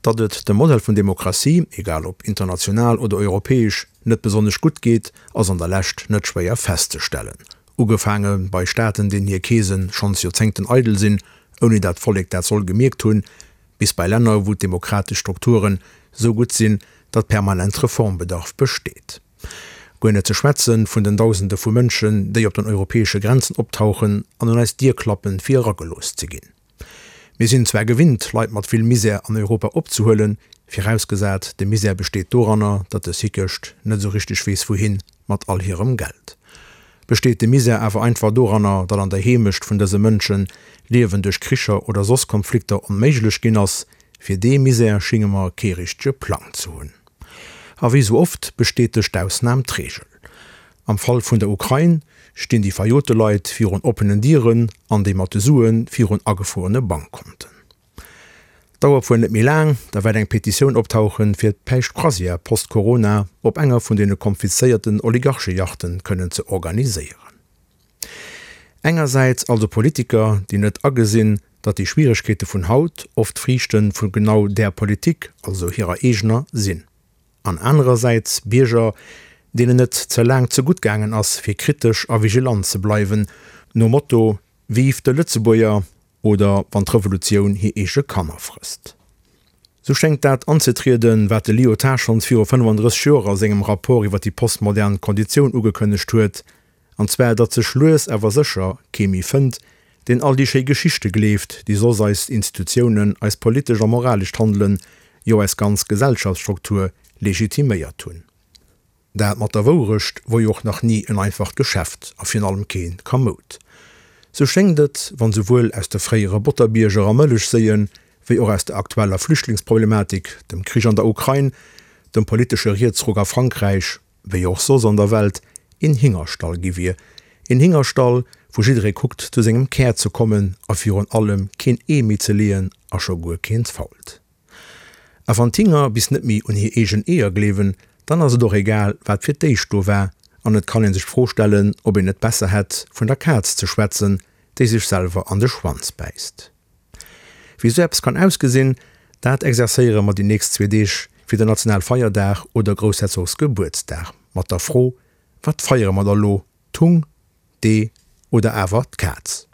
Datt et dem Modell vun Demokratie, egal ob international oder europäesch, net besonnesch gutt geet, ass an der Lescht net schwéier festzestellen. Ugefaange bei Staaten, deenen hir Keese schonns Joerzéngten eidel sinn, ouni dat d'Vollek dat soll gemierkt hunn, bis bei Länner, wou d'demokratesch Strukturen sou gutt sinn, datt permanent Reformbedarf besteet. Guer net ze schwätze vun den Dausende vu Mënschen, déi op den europäesche Grenzen optauchen an un eis Dier klappen, fir eragelooss ze ginn. Mir sinn zwar gewinnt, Leit mat vill Misär an Europa opzehuelen, virausgesat, de Misär besteet doranner, datt dës Hickecht net esou richteg weess wouhin mat all hirem Geld. Besteet de Misär awer einfach doranner, datt an der Heemecht vun dëse Mënschen d'Liewen duerch Kricher oder soss Konflikter onméiglech ginn ass, fir dee Misär schinge mer kee richtege Plang ze hunn. A wéi sou oft bestätegt d'Ausnam d'Reegel. Am Fall vun der Ukrain stinn déi verjote Leit virun oppenen Dieren an déi mat de Sue virun agefruerene Bankkonten. Dauert wuel net méi laang, da wäert eng Petitioun optauchen, fir d'Päischt-Croisière post-Corona op enger vun deene konfiszéierten Oligarcheyachten kënnen ze organiséieren. Engersäits also Politiker, déi net agesinn, datt déi Schwieregkeete vun haut oft Friichte vu genau där Politik, also hirer eegener, sinn. An anerersäits Bierger, deenen et ze laang ze gutt gaangen ass, fir kritesch a vigilant ze bleiwen, nom Motto Vive de Lëtzebuerger oder wann d'Revolutioun hir eege Kanner frësst. Sou schéngt dat anzetrieden, wat de Lyotard schonns viru 35 Joer a sengem Rapport iwwer déi postmodern Konditioun ugekënnegt huet, An zwar, datt sech lues awer sécher kee méi fënnt, deen all déi schéi Geschichte gleeft, déi soss eis Institutiounen, eist politescht a moralescht Handelen, jo eis ganz Gesellschaftsstruktur legitiméiert hunn. Dat mat der Wourecht wor jo och nach ni en einfacht Geschäft a virun allem kee kamoud. Sou schéngt et, wann souwuel aus de fréiere Botterbierger a Mëllechséien, wéi och aus der aktueller Flüchtlingsproblematik, dem Krich an der Ukrain, dem politesche Rietsruck a Frankräich, wéi och soss an der Welt, een Hingerstall gi wier. Een Hingerstall, wou jidderee kuckt zu sengem Kär ze kommen a virun allem keen Ee méi ze leeën a scho guer keent fault. A wann d'Hinger bis net méi un hir eegen Eeër gleewen, dann ass et och egal, wat fir d'éischt do war an et kann ee sech d'Fro stellen, ob een net besser hätt, vun der Kaz ze schwätzen, déi sech selwer an de Schwanz bäisst. Wéi sou eppes kann ausgesinn, dat exerzéiere mer déi nächst zwee Deeg fir den Nationalfeierdag oder Groussherzogsgebuertsdag mat der Fro, Wat feiere mer da lo, d'Hung, d'Ee oder awer d'Kaz?